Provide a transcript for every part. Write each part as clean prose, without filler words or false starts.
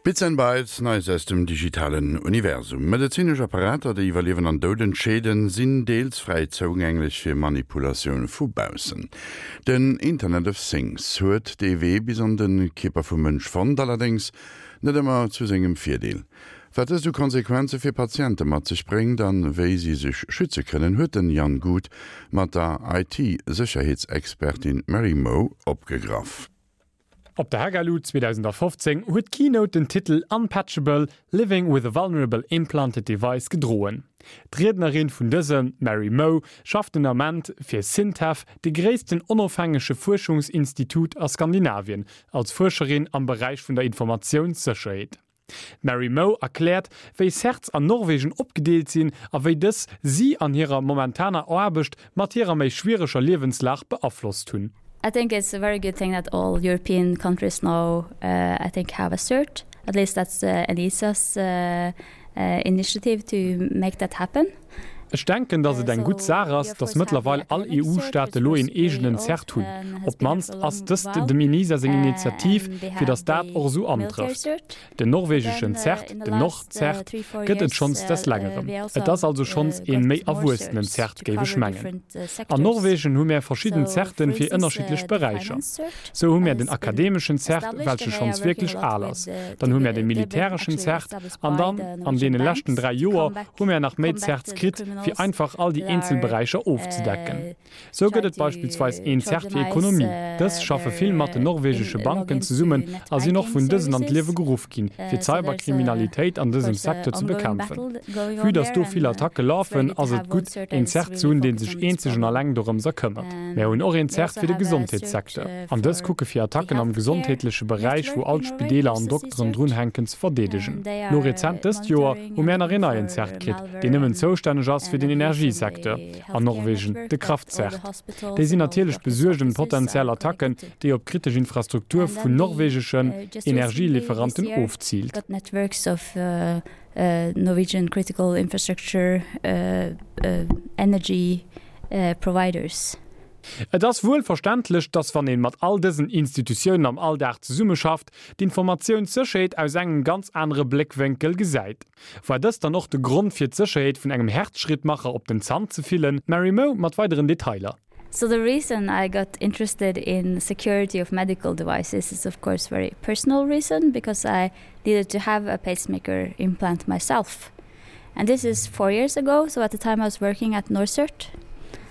Bits and Bytes, Neies aus dem digitalen Universum. Medezinesch Apparater, déi iwwer Liewen an Doud entscheeden, sinn deels fräi zougänglech fir Manipulatioun vu baussen. Den Internet of Things huet dee Wee bis an de Kierper vum Mënsch fonnt, allerdéngs net ëmmer zu sengem Virdeel. Wat dëst u Konsequenze fir Patiente mat sech bréngt an wéi si sech schütze kënnen, huet den Jan Guth mat der IT-Sécherheetsexpertin Mary Moe opgegraff. Op der Hackalu 2015 huet d'Keynote den Titel Unpatchable, Living with a Vulnerable Implanted Device gedroen. D'Riednerin vun dësem, d'Mary Moe, schafft den Ament fir SINTEF, de gréissten onofhängege Fuerschungsinstitut a Skandinavien, als Fuerscherin am Beräich vun der Informatiounssécherheet. D'Mary Moe erkläert, wéi CERTs an Norwegen opgedeelt sinn a wéi dës si an hirer momentaner Aarbecht mat hirer méi schwiereger Liewenslag beaflosst hunn. I think it's a very good thing that all European countries now I think have a cert, at least that's ENISA's initiative to make that happen. Ech denken, datt et eng gutt Saach ass, datt mëttlerweil all EU-Staate lo een eegenen CERT hunn. Op d'mannst ass dëst dem ENISA seng Initiativ, fir datt dat och esou antrëfft. Den norwegeschen CERT, den NorCERT, gëtt et schonns des Längerem. Et ass also schonns een méi erwuessenen CERT, géif ech mengen. An Norwegen hu mär verschidden CERTen fir ënnerschiddlech Beräicher. Sou hu mär den akademeschen CERT, welche schonns wierklech al ass. Dann hu mär de militäreschen CERT an dann an deene leschten 3 Joer hu mär nach méi Certs kritt, fir einfach all déi eenzel Beräicher ofzedecken. Sou gëtt et beispillsweis een Cert fir Ekonomie. Dës schaffe vill mat den norwegesche Banken zesummen a sinn och vun dësen an d'Liewe geruff ginn, fir d'Cyberkriminalitéit an dësem Secteur ze bekämpfen. Vue datt do vill Attacke lafen, ass et gutt, een Cert ze hunn, dee sech eenzeg an alleng dorëmser këmmert. Mär hunn och een Cert fir de Gesondheetssecteur. An dës kucke fir Attacken am gesondheetleche Beräich, wou all d'Spideeler an Dokteren drunhänken, ze verdeedegen. Lo rezent dëst Joer hu mär nach een neien Cert kritt, deen nëmmen zoustänneg ass fir den Energiesecteur an Norwegen, de Kraft-Cert. Déi sinn natierlech besuergt ëm potentiell Attacken, déi op kritesch Infrastruktur vun norwegeschen Energieliferanten ofziilt. Et ass wuel verständlech, dass wann een mat all dësen Institutiounen am Alldag zesummeschafft, d'Informatiounssécherheet aus engem ganz anere Bléckwénkel gesäit. War dëst dann och de Grond fir d'Sécherheet vun engem Herzschrittmacher op den Zant ze fillen? D'Mary Moe mat weideren Detailer. So the reason I got interested in security of medical devices is of course very personal reason because I needed to have a pacemaker implant myself. And this is four years ago, so at the time I was working at NorCERT.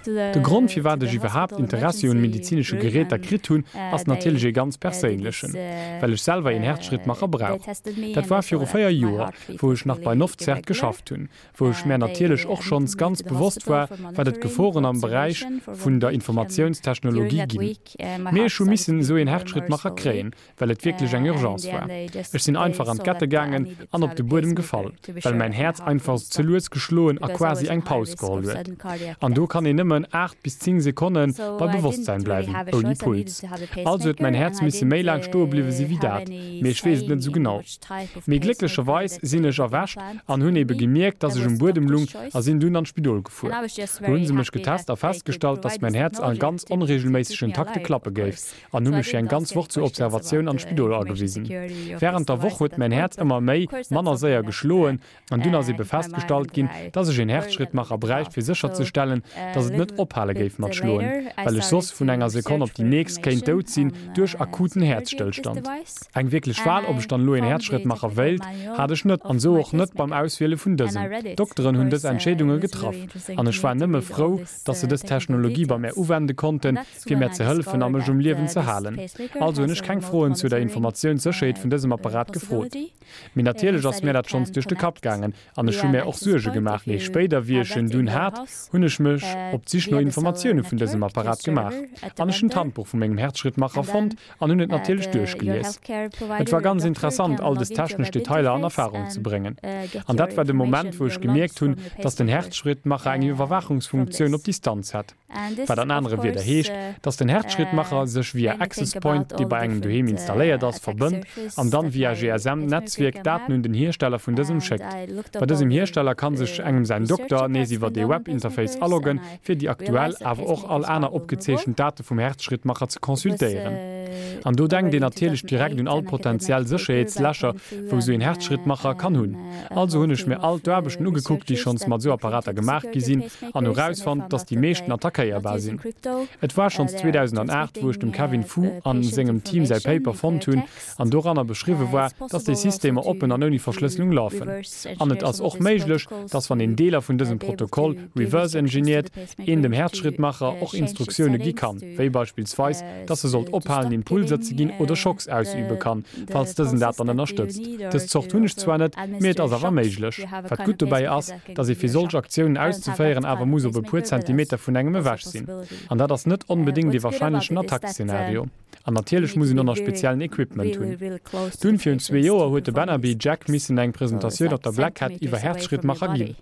De Grond firwat ech iwwerhaapt Interessi un medizinesche Geräter kritt hunn, ass natierlech ee ganz perséinlechen, well ech selwer een Herzschrittmacher brauch. Dat war viru 4 Joer, wou ech nach bei NorCERT geschafft hunn, wou ech mär natierlech och schonns ganz bewosst war, wat et Geforen am Beräich vun der Informatiounstechnologie ginn. Mee ech hu missen esou een Herzschrittmacher kréien, well et wierklech eng Urgence war. Ech sinn einfach an d'Gette gaangen an op de Buedem gefall, well mäin Häerz einfach ze lues geschloen a quasi eng Paus geholl huet. An do kann een nëmmen 8 bis 10 Sekonne bei Bewosstsäin bleiwen, ouni Puls. Also huet mäin Häerz misse méi laang stoe bliwwe si wéi dat, mee ech weess et net esou genau. Mee glécklecherweis sinn ech erwächt an hunn ebe gemierkt, dass ech um Buedem lung a sinn dunn an d'Spidol gefuer. Do hu se mech getest a festgestallt, dass mäin Häerz a ganz onreegelméissegen Takte klappe géif. an hu mech fir eng ganz Woch zur Observatioun an d'Spidol agewisen. Wärend der Woch huet mäin Häerz ëmmer méi, manner séier geschloen an dunn ass ebe festgestallt ginn, dass ech een Herzschrittmacher bräicht fir sécherzestellen, dass et net ophale géif mat schloen, well ech soss vun enger Sekonn op déi nächst kéint dout sinn duerch akuten Häerzstëllstand. Eng wierklech Wahl, ob ech dann elo een Herzschrittmacher wéilt, hat ech net an esou och net beim Auswiele vun dësem. D'Dokteren hunn dës Entscheedunge getraff an ech war nëmme frou, dass se dës Technologie bei mär uwende konnten, fir mär ze hëllefen a mech um Liewen ze halen. Also hunn ech keng Froen zu der Informatiounssécherheet vun dësem Apparat gefrot. Mee natierlech ass mär dat schonns duerch de Kapp gaangen an ech hu mär och Suerge gemaach. Mee spéider, wéi ech en dunn hat, hunn ech mech op d'Sich no Informatioune vun dësem Apparat gemaach an ech hunn d'Handbuch vu mengem Herzschrittmacher fonnt an hunn et natierlech duerchgelies. Et war ganz interessant, all des technesch Detailer an Erfarung ze bréngen. An dat war de Moment, wou ech gemierkt hunn, dass den Herzschrittmacher eng Iwwerwaachungsfunktioun op Distanz hätt. Wat an anere Wierder heescht, dass den Herzschrittmacher sech via Access Point, dee bei engem doheem installéiert ass, verbënnt an dann via GSM-Netzwierk Daten un den Hiersteller vun dësem schéckt. Bei dësem Hiersteller kann sech engem säin Dokter nees iwwert ee Webinterface aloggen, fir. déi aktuell, awer och all aner opgezeechent Date vum Herzschrittmacher ze consultéieren. An do denkt een natierlech direkt un all potentiell Sécherheetslächer, wou sou een Herzschrittmacher kann hunn. Also hunn ech mir all d'Aarbechten ugekuckt, déi schonns mat sou Apparater gemaach gi sinn, an hu rausfonnt, dass déi meeschten attackéierbar sinn. Et war schonns 2008, wou ech dem Kevin Fu an sengem Team säi Paper fonnt hunn, an doranner beschriwwe war, dass déi Systemer oppen an ouni Verschlësselung lafen. An et ass och méiglech, dass wann een Deeler vun dësem Protokoll reverse engineert, een dem Häerzschrittmacher och Instruktioune gi kann, wéi beispillsweis, dass e sollt ophalen Impulser ze ginn oder Schocks ausübe kann, falls dësen dat dann ënnerstëtzt. Dës Zort hunn ech zwar net, mee et ass awer méiglech. Wat gutt dobäi ass, dass ee fir solch Aktiounen auszeféieren awer muss op e puer Zentimeter vun engem ewech sinn. An dat ass net onbedéngt ee warscheinlechen Attack-Szenario. An natierlech muss een och nach speziellen Equipment hunn. Dunn, virun zwee Joer, huet de Bannaby Jack missen eng Presentatioun op der Black Hat iwwer Herzschrittmacher ginn.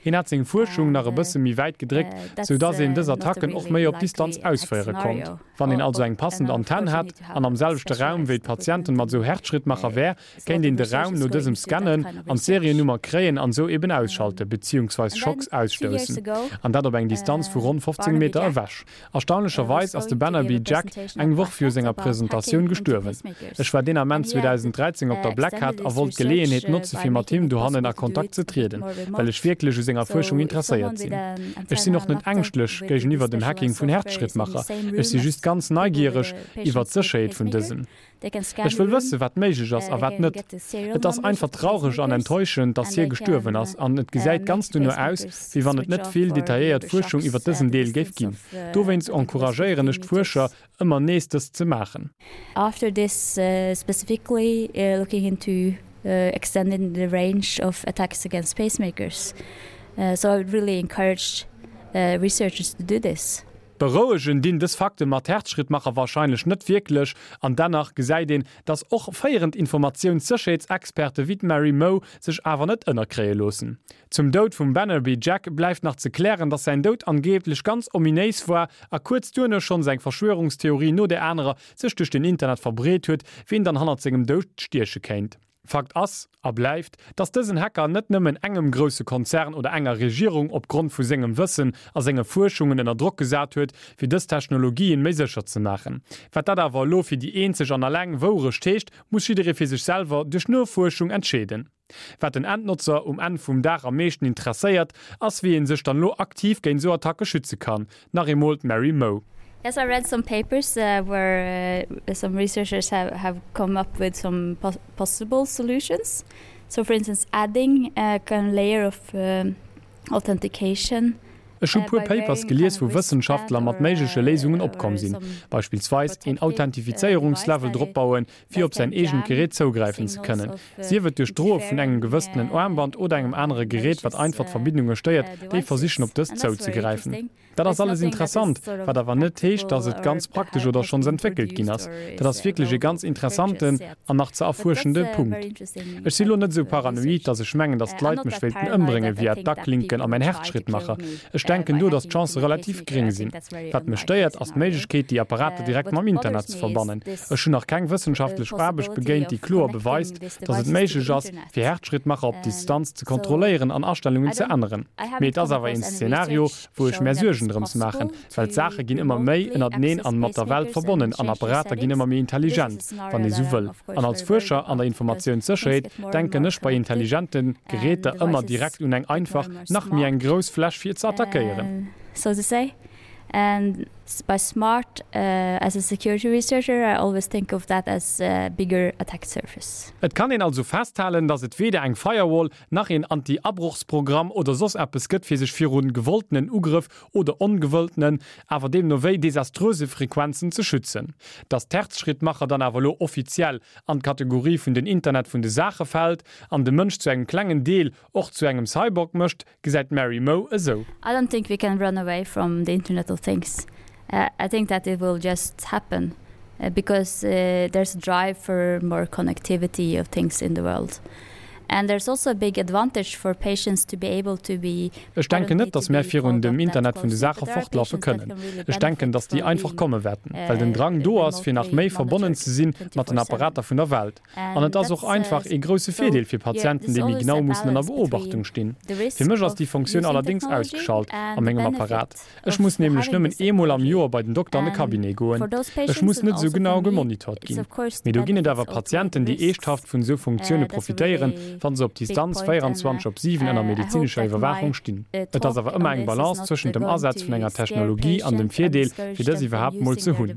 Hien hat seng Fuerschung nach e bësse méi wäit gedréckt, sou dass een dës Attacken och méi op Distanz ausféiere konnt. Wann een also eng passend Antenn hätt an am selwechte Raum wéi d'Patienten mat esou Herzschrittmacher wär, kéint een de Raum no dësem scannen an d'Seriennummer kréien an esou eben ausschalte beziehungsweis Schocks ausstoussen. An dat op eng Distanz vu ronn 15 Meter ewech. Erstaunlecherweis ass de Bannaby Jack eng Woch viru senger Presentatioun gestuerwen. Ech war deen Ament 2013 op der Black Hat a wollt d'Geleeënheet notze fir mat him dohannen a Kontakt ze trieden, well ech wierklech u senger Fuerschung interesséiert sinn. Ech sinn och net ängschtlech géigeniwwer dem Hacking vun Herzschrittmacher, ech si just ganz neigiereg iwwer d'Sécherheet vun dësen. Ech wëll wëssen, wat méiglech ass a wat net. Et ass einfach traureg an enttäuschend, dass hie gestuerwen ass an et gesäit ganz duerno aus, wéi wann et net vill detailléiert Fuerschung iwwer dësen Deel géif ginn. Dowéinst encouragéieren ech d'Fuerscher, ëmmer nees dëst ze maachen. After this specifically looking into extending the range of attacks against pacemakers. So I would really encourage researchers to do this. Berouegen dinn dës Fakte mat Herzschrittmacher warscheinlech net wierklech, an dennach gesäit een, dass och féierend Informatiounssécherheetsexperte wéi d'Mary Moe sech awer net ënnerkréie loossen. Zum Doud vum Bannerby Jack bleift nach ze klären, dass säin Doud angeeblech ganz ominéis war a kuerz duerno schonns eng Verschwörungstheorie no där anerer sech duerch den Internet verbreet huet, wien dann hannert sengem Doud stieche kéint. Fakt ass a bleift, dass dësen Hacker net nëmmen engem grousse Konzern oder enger Regierung op Grond vu sengem Wëssen a senge Fuerschungen ënner Drock gesat huet, fir dës Technologien méi sécher ze maachen. Wat dat awer elo fir déi eenzeg an alleng Wourecht heescht, muss jidderee fir sech selwer duerch Nofuerschung entscheeden. Wat den Endnotzer um Enn vum Dag am meeschten interesséiert, ass wéi ee sech dann elo aktiv géint esou Attacke schütze kann. Nach eemol d'Mary Moe. Yes, I read some papers where some researchers have have come up with some possible solutions. So for instance adding a kind of layer of authentication. Ech hu puer Papers gelies wou Wëssenschaftler mat méigleche Léisungen opkomm sinn, beispillsweis een Authentifizéierungslevel drop bauen, fir op säin eegent Gerät zougräifen ze kënnen, sief et duerch d'Droe vun engem gewëssenen Aarmband oder engem anere Gerät wat einfach d'Verbindunge stéiert, déi versichen op dëst zouzegräifen. Dat ass alles interessant, wat awer net heescht, dass et ganz praktesch oder schonns entwéckelt ginn ass. Dat ass wierklech e ganz interessanten an nach ze erfuerschende Punkt. Ech si lo net esou paranoid, dass ech mengen, dass d'Leit mech wéilten ëmbrénge via d'Aklinken a mäin Herzschrittmacher. Ech denken do, dass d'Chancë relativ gréng sinn. Wat mech stéiert, ass d'Méiglechkeet, déi Apparater direkt mam Internet ze verbannen. Ech hunn nach keng wëssenschaftlech Aarbecht begéint, déi kloer beweist, dass et méiglech ass, fir Herzschrittmacher op Distanz ze kontrolléieren an Astellungen ze änneren. Mee et ass awer een Szenario, wou ech mär Suergen drëms maachen, well d'Saache ginn ëmmer méi ënnerteneen an mat der Welt verbonnen an Apparater ginn ëmmer méi intelligent, wann ee sou wëll. An als Fuerscher an der Informatiounssécherheet denken ech bei intelligente Geräter ëmmer direkt un eng einfach, nach méi eng grouss Fläch fir ze attackéieren. And by smart, as a security researcher, I always think of that as a bigger attack surface. Et kann een also festhalen, dass et weder eng Firewall, nach een Anti-Abrochsprogramm oder soss eppes gëtt fir sech virun gewolltenen Ugrëff oder ongewëlltenen, awer deemno wéi desaströse Frequenzen ze schützen. Dass d'Herzschrittmacher dann awer elo offiziell an d'Kategorie vun den Internet vun de Saache fält an de Mënsch zu engem klengen Deel och zu engem Cyborg mécht, Gesäit d'Mary Moe esou. I don't think we can run away from the Internet of Things. I think that it will just happen because there's a drive for more connectivity of things in the world. And there's also a big advantage for patients to be able to be Ech denken net, datt mär virun dem Internet vun de Saache fortlaffe kënnen. Ech denken, datt déi einfach komme wäerten, well den Drang do ass, fir nach méi verbonnen ze si mat den Apparater vun der Welt. An et ass och einfach ee grousse Virdeel fir Patienten, déi méi genau mussen ënner Beobachtung stinn. Fir mech ass déi Fonctioun allerdéngs ausgeschalt a mengem Apparat. Ech muss nämlech nëmmen eemol am Joer bei den Dokter an de Cabinet goen. Ech muss net esou genau gemonitort ginn. Mee do ginn et awer Patienten, déi eeschthaft vun esou Funktioune profitéieren, wa se op Distanz 24 op 7 ënner medezinescher Iwwerwaachung stinn. Et ass awer ëmmer eng Balance zwëschent dem Asaz vun enger Technologie an dem Virdeel, fir dës iwwerhaapt mol ze hunn.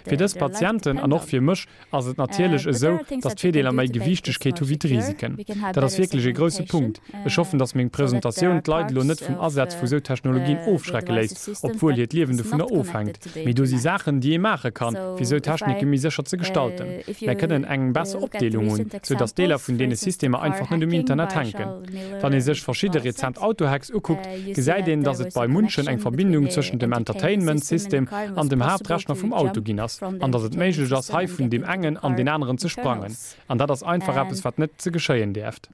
Fir dës Patienten an och fir mech ass et natierlech esou, dass d'Virdeeler méi Gewiichtegkeet hu wéi d'Risiken. Dat ass wierklech ee grouse Punkt. Ech hoffen, dass meng Presentatioun d'Leit elo net vum Asaz vu sou Technologien ofschrecke léisst, obwuel hiert Liewen dovunner ofhänkt. Mee do si Saachen, déi ee maache kann, fir sou Technike méi sécher ze gestalten. Mär kënnen eng besser Opdeelung hunn, sou dass Deeler vun deene Systemer einfach net um Internet hänken. Wann ee sech verschidde rezent Autohacks ukuckt, gesäit een, dass et bei munchen eng Verbindung zwëschent dem Entertainment System an dem Haaptrechner vum Auto ginn ass, an dass et méiglech ass, hei vun deem engen an deen aneren ze sprangen. An dat ass einfach eppes, wat net ze geschéien däerft.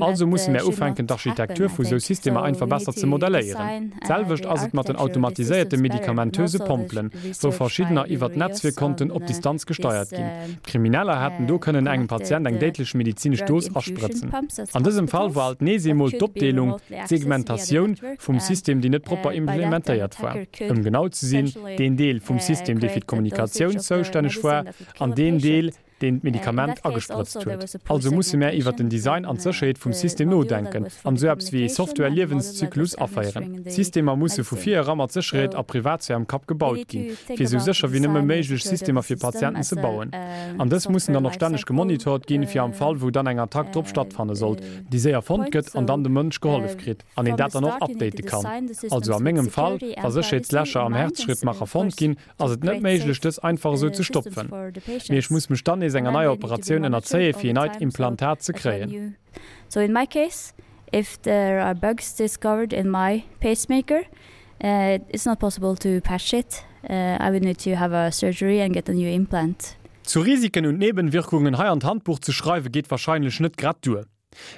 Also musse mär ufänken, d'Architektur vu sou Systemer einfach besser ze modelléieren. D'selwecht ass et mat den automatiséierte medikamentöse Pompelen, wou verschiddener iwwert Netzwierkkonten op Distanz gesteiert ginn. D'Krimineller hätten do kënnen engem Patient eng déidlech medizinesch Dos asprëtzen. An dësem Fall war alt nees eemol d'Opdeelung, d'Segmentatioun, vum System, déi net propper implementéiert war. Ëm genau ze sinn, deen Deel vum System, dee fir d'Kommunikatioun zoustänneg war, an deen Deel, deen d'Medikament agesprëtzt huet. Also musse mär iwwert den Design an d'Sécherheet vum System nodenken an esou eppes wéi ee Software-Liewenszyklus aféieren. D'Systemer musse vu vir era mat Sécherheet a Privatsphär am Kapp gebaut ginn, fir esou sécher wéi nëmme méiglech Systemer fir Patienten ze bauen. An dës mussen dann och stänneg gemonitort ginn, fir am Fall wou dann eng Attack drop stattfanne sollt, déi séier fonnt gëtt an dann dem Mënsch gehollef kritt an een dat dann och update kann. Also a mengem Fall, wa Sécherheetslächer am Herzschrittmacher fonnt ginn, ass et net méiglech dës einfach esou ze stopfen. Mee ech muss mech dann nees enger neier Operatioun ënnerzéie fir een neit Implantat ze kréien. So in my case, if there are bugs discovered in my pacemaker, it's not possible to patch it. I would need to have a surgery and get a new implant. Zu Risiken und Nebenwirkungen hei an d'Handbuch ze schreiwe geet wahrscheinlech net grad duer.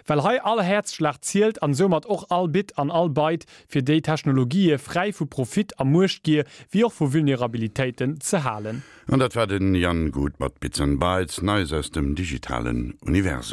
Well hei all Häerzschlag zielt an soumat och all Bit an all Byte, fir déi Technologië fräi vu Profit a Muechtgier wéi och vu Vulnerabilitéiten ze halen. An dat war den Jan Guth mat Bits and Bytes, Neies aus dem digitalen Universum.